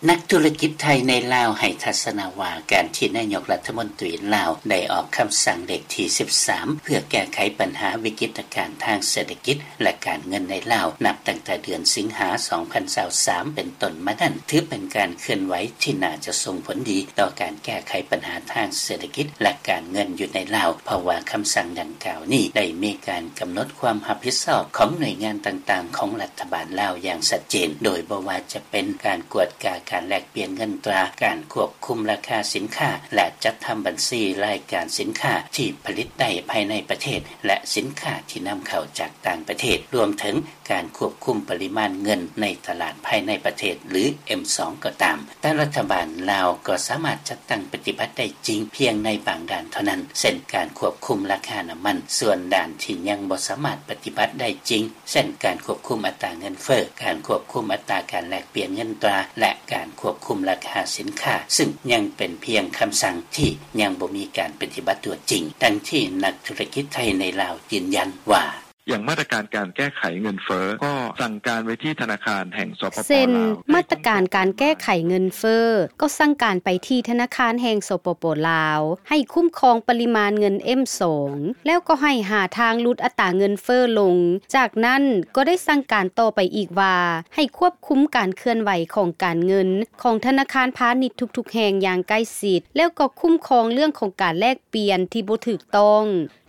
ນັກທຸລະກິດໄທໃນລາວໃຫ້ທັດສະນະວ່າ ການທີ່ນາຍົກລັດຖະມົນຕີລາວໄດ້ອອກຄຳສັ່ງເລກທີສິບສາມ ເພື່ອແກ້ໄຂບັນຫາວິກິດຕະການທາງເສດຖະກິດ ແລະ ການເງິນໃນລາວ ນັບຕັ້ງແຕ່ເດືອນສິງຫາ ສອງພັນຊາວສາມ ເປັນຕົ້ນມານັ້ນ ຖືເປັນການເຄື່ອນໄຫວທີ່ໜ້າຈະສົ່ງຜົນດີຕໍ່ການແກ້ໄຂບັນຫາທາງເສດຖະກິດ ແລະ ການເງິນຢູ່ໃນລາວ ເພາະວ່າຄຳສັ່ງດັ່ງກ່າວນີ້ໄດ້ມີການກຳນົດຄວາມຮັບຜິດຊອບຂອງໜ່ວຍງານຕ່າງໆຂອງລັດຖະບານລາວຢ່າງຊັດເຈນ ໂດຍບໍ່ວ່າຈະ ເປັນການກວດກາການແລກປ່ຽນເງິນຕາ, ການຄວບຄຸມລາຄາສິນຄ້າ ແລະ ຈັດທຳບັນຊີລາຍການສິນຄ້າທີ່ຜະລິດໄດ້ພາຍໃນປະເທດ ແລະ ສິນຄ້າທີ່ນຳເຂົ້າຈາກຕ່າງປະເທດ, ລວມເຖິງການຄວບຄຸມປະລິມານເງິນໃນຕະຫຼາດພາຍໃນປະເທດ ຫຼື ເອັມສອງ ກໍຕາມ. ແຕ່ລັດຖະບານລາວກໍສາມາດຈັດຕັ້ງປະຕິບັດໄດ້ຈິງພຽງໃນບາງດ້ານເທົ່ານັ້ນ, ເຊັ່ນ ການຄວບຄຸມລາຄານ້ຳມັນ. ສ່ວນດ້ານທີ່ຍັງບໍ່ສາມາດປະຕິບັດໄດ້ຈິງ ເຊັ່ນ ການຄວບຄຸມອັດຕາເງິນເຟີ້, ການຄວບຄຸມອັດຕາການແລກປ່ຽນເງິນຕາ ແລະ ການຄວບຄຸມລາຄາສິນຄ້າ, ຊຶ່ງຍັງເປັນພຽງຄຳສັ່ງທີ່ຍັງບໍ່ມີການປະຕິບັດຕົວຈິງ, ດັ່ງທີ່ນັກທຸລະກິດໄທໃນລາວຢືນຢັນວ່າ: ຢ່າງມາດຕະການການແກ້ໄຂເງິນເຟີ້ ກໍສັ່ງການໄວ້ທີ່ທະນາຄານແຫ່ງ ສປປ ລາວ ເຊັ່ນ ມາດຕະການການແກ້ໄຂເງິນເຟີ້ ກໍສັ່ງການໄປທີ່ທະນາຄານແຫ່ງ ສປປ ລາວ ໃຫ້ຄຸ້ມຄອງປະລິມານເງິນ ເອັມສອງ ແລ້ວກໍໃຫ້ຫາທາງຫຼຸດອັດຕາເງິນເຟີ້ລົງ. ຈາກນັ້ນກໍໄດ້ສັ່ງການຕໍ່ໄປອີກວ່າ ໃຫ້ຄວບຄຸມການເຄື່ອນໄຫວຂອງການເງິນຂອງທະນາຄານພານິດທຸກໆແຫ່ງຢ່າງໃກ້ຊິດ ແລ້ວກໍຄຸ້ມຄອງເລື່ອງຂອງການແລກປ່ຽນທີ່ບໍ່ຖືກຕ້ອງ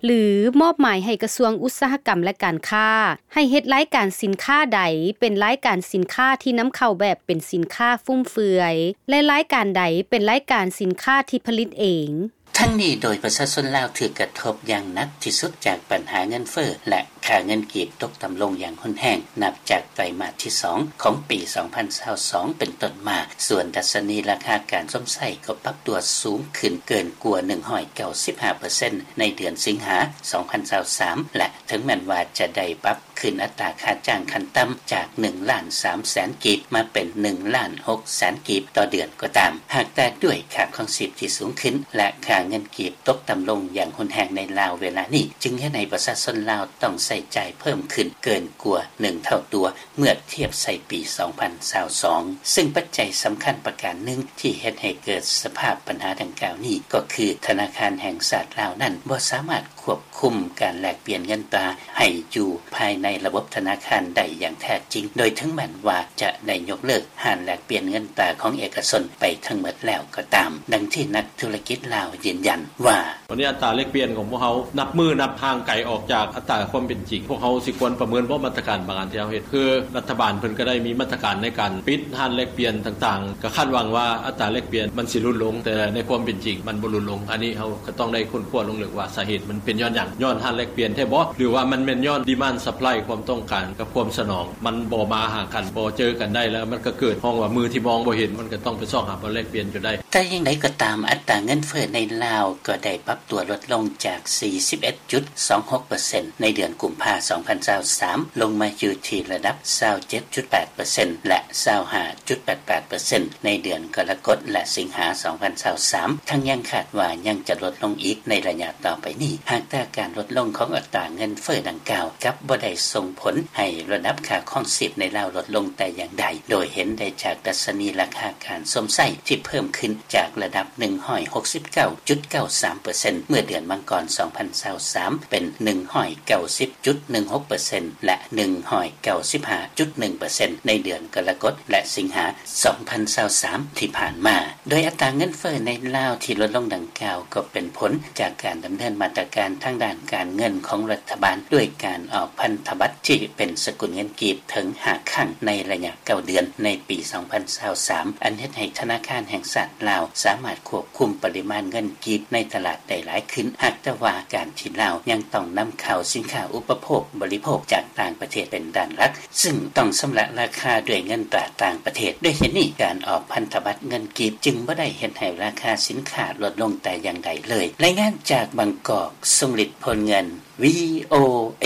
ຫຼື ມອບໝາຍໃຫ້ກະຊວງອຸດສາຫະກຳ ແລະ ການຄ້າ ໃຫ້ເຮັດລາຍການສິນຄ້າໃດເປັນລາຍການສິນຄ້າທີ່ນຳເຂົ້າແບບເປັນສິນຄ້າຟຸມເຟືອຍ ແລະ ລາຍການໃດເປັນລາຍການສິນຄ້າທີ່ຜະລິດເອງ. ທັງນີ້ ໂດຍປະຊາຊົນລາວຖືກກະທົບຢ່າງໜັກທີ່ສຸດຈາກບັນຫາເງິນເຟີ້ ແລະ ຄ່າເງິນກີບຕົກຕ່ຳລົງຢ່າງຮຸນແຮງ ນັບຈາກໄຕມາດທີສອງຂອງປີສອງພັນຊາວສອງເປັນຕົ້ນມາ, ສ່ວນດັດຊະນີລາຄາການຊົມໃຊ້ກໍປັບຕົວສູງຂຶ້ນເກີນກວ່າໜຶ່ງຮ້ອຍເກົ້າສິບຫ້າເປີເຊັນໃນເດືອນສິງຫາສອງພັນຊາວສາມ ແລະ ເຖິງແມ່ນວ່າຈະໄດ້ປັບຂຶ້ນອັດຕາຄ່າຈ້າງຂັ້ນຕ່ຳຈາກໜຶ່ງລ້ານສາມແສນກີບມາເປັນໜຶ່ງລ້ານຫົກແສນກີບຕໍ່ເດືອນກໍຕາມ, ຫາກແຕ່ດ້ວຍຄ່າຄອງຊີບທີ່ສູງຂຶ້ນ ແລະ ຄ່າເງິນກີບຕົກຕ່ຳລົງຢ່າງຮຸນແຮງໃນລາວເວລານີ້ ຈຶ່ງເຮັດໃຫ້ປະຊາຊົນລາວຕ້ອງໃຊ້ຈ່າຍເພີ່ມຂຶ້ນເກີນກວ່າໜຶ່ງເທົ່າຕົວ ເມື່ອທຽບໃສ່ປີສອງພັນຊາວສອງ ຊຶ່ງປັດໄຈສຳຄັນປະການໜຶ່ງທີ່ເຮັດໃຫ້ເກີດສະພາບບັນຫາດັ່ງກ່າວນີ້ ກໍຄືທະນາຄານແຫ່ງຊາດລາວນັ້ນບໍ່ສາມາດຄວບຄຸມການແລກປ່ຽນເງິນຕາໃຫ້ຢູ່ພາຍໃນລະບົບທະນາຄານໄດ້ຢ່າງແທ້ຈິງ, ໂດຍເຖິງແມ່ນວ່າຈະໄດ້ຍົກເລີກຮ້ານແລກປ່ຽນເງິນຕາຂອງເອກະຊົນໄປທັງໝົດແລ້ວກໍຕາມ, ດັ່ງທີ່ນັກທຸລະກິດລາວຢືນຢັນວ່າ: ຕອນນີ້ອັດຕາແລກປ່ຽນຂອງພວກເຮົານັບມື້ນັບຫ່າງໄກອອກຈາກອັດຕາຄວາມເປັນຈິງ. ພວກເຮົາຊິຄວນປະເມີນບໍ່ມາດຕະການບາງອັນທີ່ເຮົາເຮັດ? ຄືລັດຖະບານເພິ່ນກໍໄດ້ມີມາດຕະການໃນການປິດຮ້ານແລກປ່ຽນຕ່າງໆ, ກໍຄາດຫວັງວ່າອັດຕາແລກປ່ຽນມັນຊິຫຼຸດລົງ, ແຕ່ໃນຄວາມເປັນຈິງມັນບໍ່ຫຼຸດລົງ. ອັນນີ້ເຮົາກໍຕ້ອງໄດ້ຄົ້ນຄວ້າລົງເລິກວ່າສາເຫດມັນເປັນຍ້ອນຫຍັງ? ຍ້ອນຮ້ານແລກປ່ຽນແທ້ບໍ່? ຫຼືວ່າມັນແມ່ນຍ້ອນ demand supply ຄວາມຕ້ອງການກັບຄວາມສະໜອງ ມັນບໍ່ມາຫາກັນ, ບໍ່ເຈີກັນໄດ້ ແລ້ວມັນກໍເກີດ ຮ້ອງວ່າມືທີ່ມອງບໍ່ເຫັນ, ມັນກໍຕ້ອງໄປຊອກຫາບ່ອນແລກປ່ຽນຢູ່ໄດ້. ແຕ່ຢ່າງໃດກໍຕາມ, ອັດຕາເງິນເຟີ້ໃນລາວກໍໄດ້ປັບຕົວລົດລົງຈາກສີ່ສິບເອັດຈຸດສອງຫົກເປີເຊັນໃນເດືອນກຸມພາ ສອງພັນຊາວສາມ ລົງມາຢູ່ທີ່ລະດັບຊາວເຈັດຈຸດແປດເປີເຊັນ ແລະ ຊາວຫ້າຈຸດແປດແປດເປີເຊັນໃນເດືອນກໍລະກົດ ແລະ ສິງຫາ ສອງພັນຊາວສາມ ທັງຍັງຄາດວ່າຍັງຈະລົດລົງອີກໃນໄລຍະຕໍ່ໄປນີ້ ຫາກແຕ່ການລົດລົງຂອງອັດຕາເງິນເຟີ້ດັ່ງກ່າວ ກັບບໍ່ໄດ້ສົ່ງຜົນໃຫ້ລະດັບຄ່າຄອງຊີບໃນລາວລົດລົງແຕ່ຢ່າງໃດ, ໂດຍເຫັນໄດ້ຈາກດັດຊະນີລາຄາການຊົມໃຊ້ທີ່ເພີ່ມຂຶ້ນຈາກລະດັບໜຶ່ງຮ້ອຍຫົກສິບເກົ້າຈຸດເກົ້າສາມເປີເຊັນເມື່ອເດືອນມັງກອນ ສອງພັນຊາວສາມ ເປັນໜຶ່ງຮ້ອຍເກົ້າສິບຈຸດໜຶ່ງຫົກເປີເຊັນ ແລະ ໜຶ່ງຮ້ອຍເກົ້າສິບຫ້າຈຸດໜຶ່ງເປີເຊັນໃນເດືອນກໍລະກົດ ແລະ ສິງຫາ ສອງພັນຊາວສາມ ທີ່ຜ່ານມາ. ໂດຍອັດຕາເງິນເຟີ້ໃນລາວທີ່ລົດລົງດັ່ງກ່າວ ກໍເປັນຜົນຈາກການດຳເນີນມາດຕະການທາງດ້ານການເງິນຂອງລັດຖະບານ ດ້ວຍການອອກພັນທະບັດທີ່ເປັນສະກຸນເງິນກີບເຖິງຫ້າຄັ້ງໃນໄລຍະເກົ້າເດືອນໃນປີສອງພັນຊາວສາມ ອັນເຮັດໃຫ້ທະນາຄານແຫ່ງຊາດລາວສາມາດຄວບຄຸມປະລິມານເງິນກີບໃນຕະຫຼາດໄດ້ຫຼາຍຂຶ້ນ, ຫາກແຕ່ວ່າການທີ່ລາວຍັງຕ້ອງນຳເຂົ້າສິນຄ້າອຸປະໂພກບໍລິໂພກຈາກຕ່າງປະເທດເປັນດ້ານຫຼັກ, ຊຶ່ງຕ້ອງຊຳລະລາຄາດ້ວຍເງິນຕາຕ່າງປະເທດ. ດ້ວຍເຫດນີ້, ການອອກພັນທະບັດເງິນກີບຈຶ່ງບໍ່ໄດ້ເຮັດໃຫ້ລາຄາສິນຄ້າລົດລົງແຕ່ຢ່າງໃດເລີຍ. ລາຍງານຈາກບາງກອກ, ຊົງລິດ ໂພນເງິນ, ວີໂອເອ.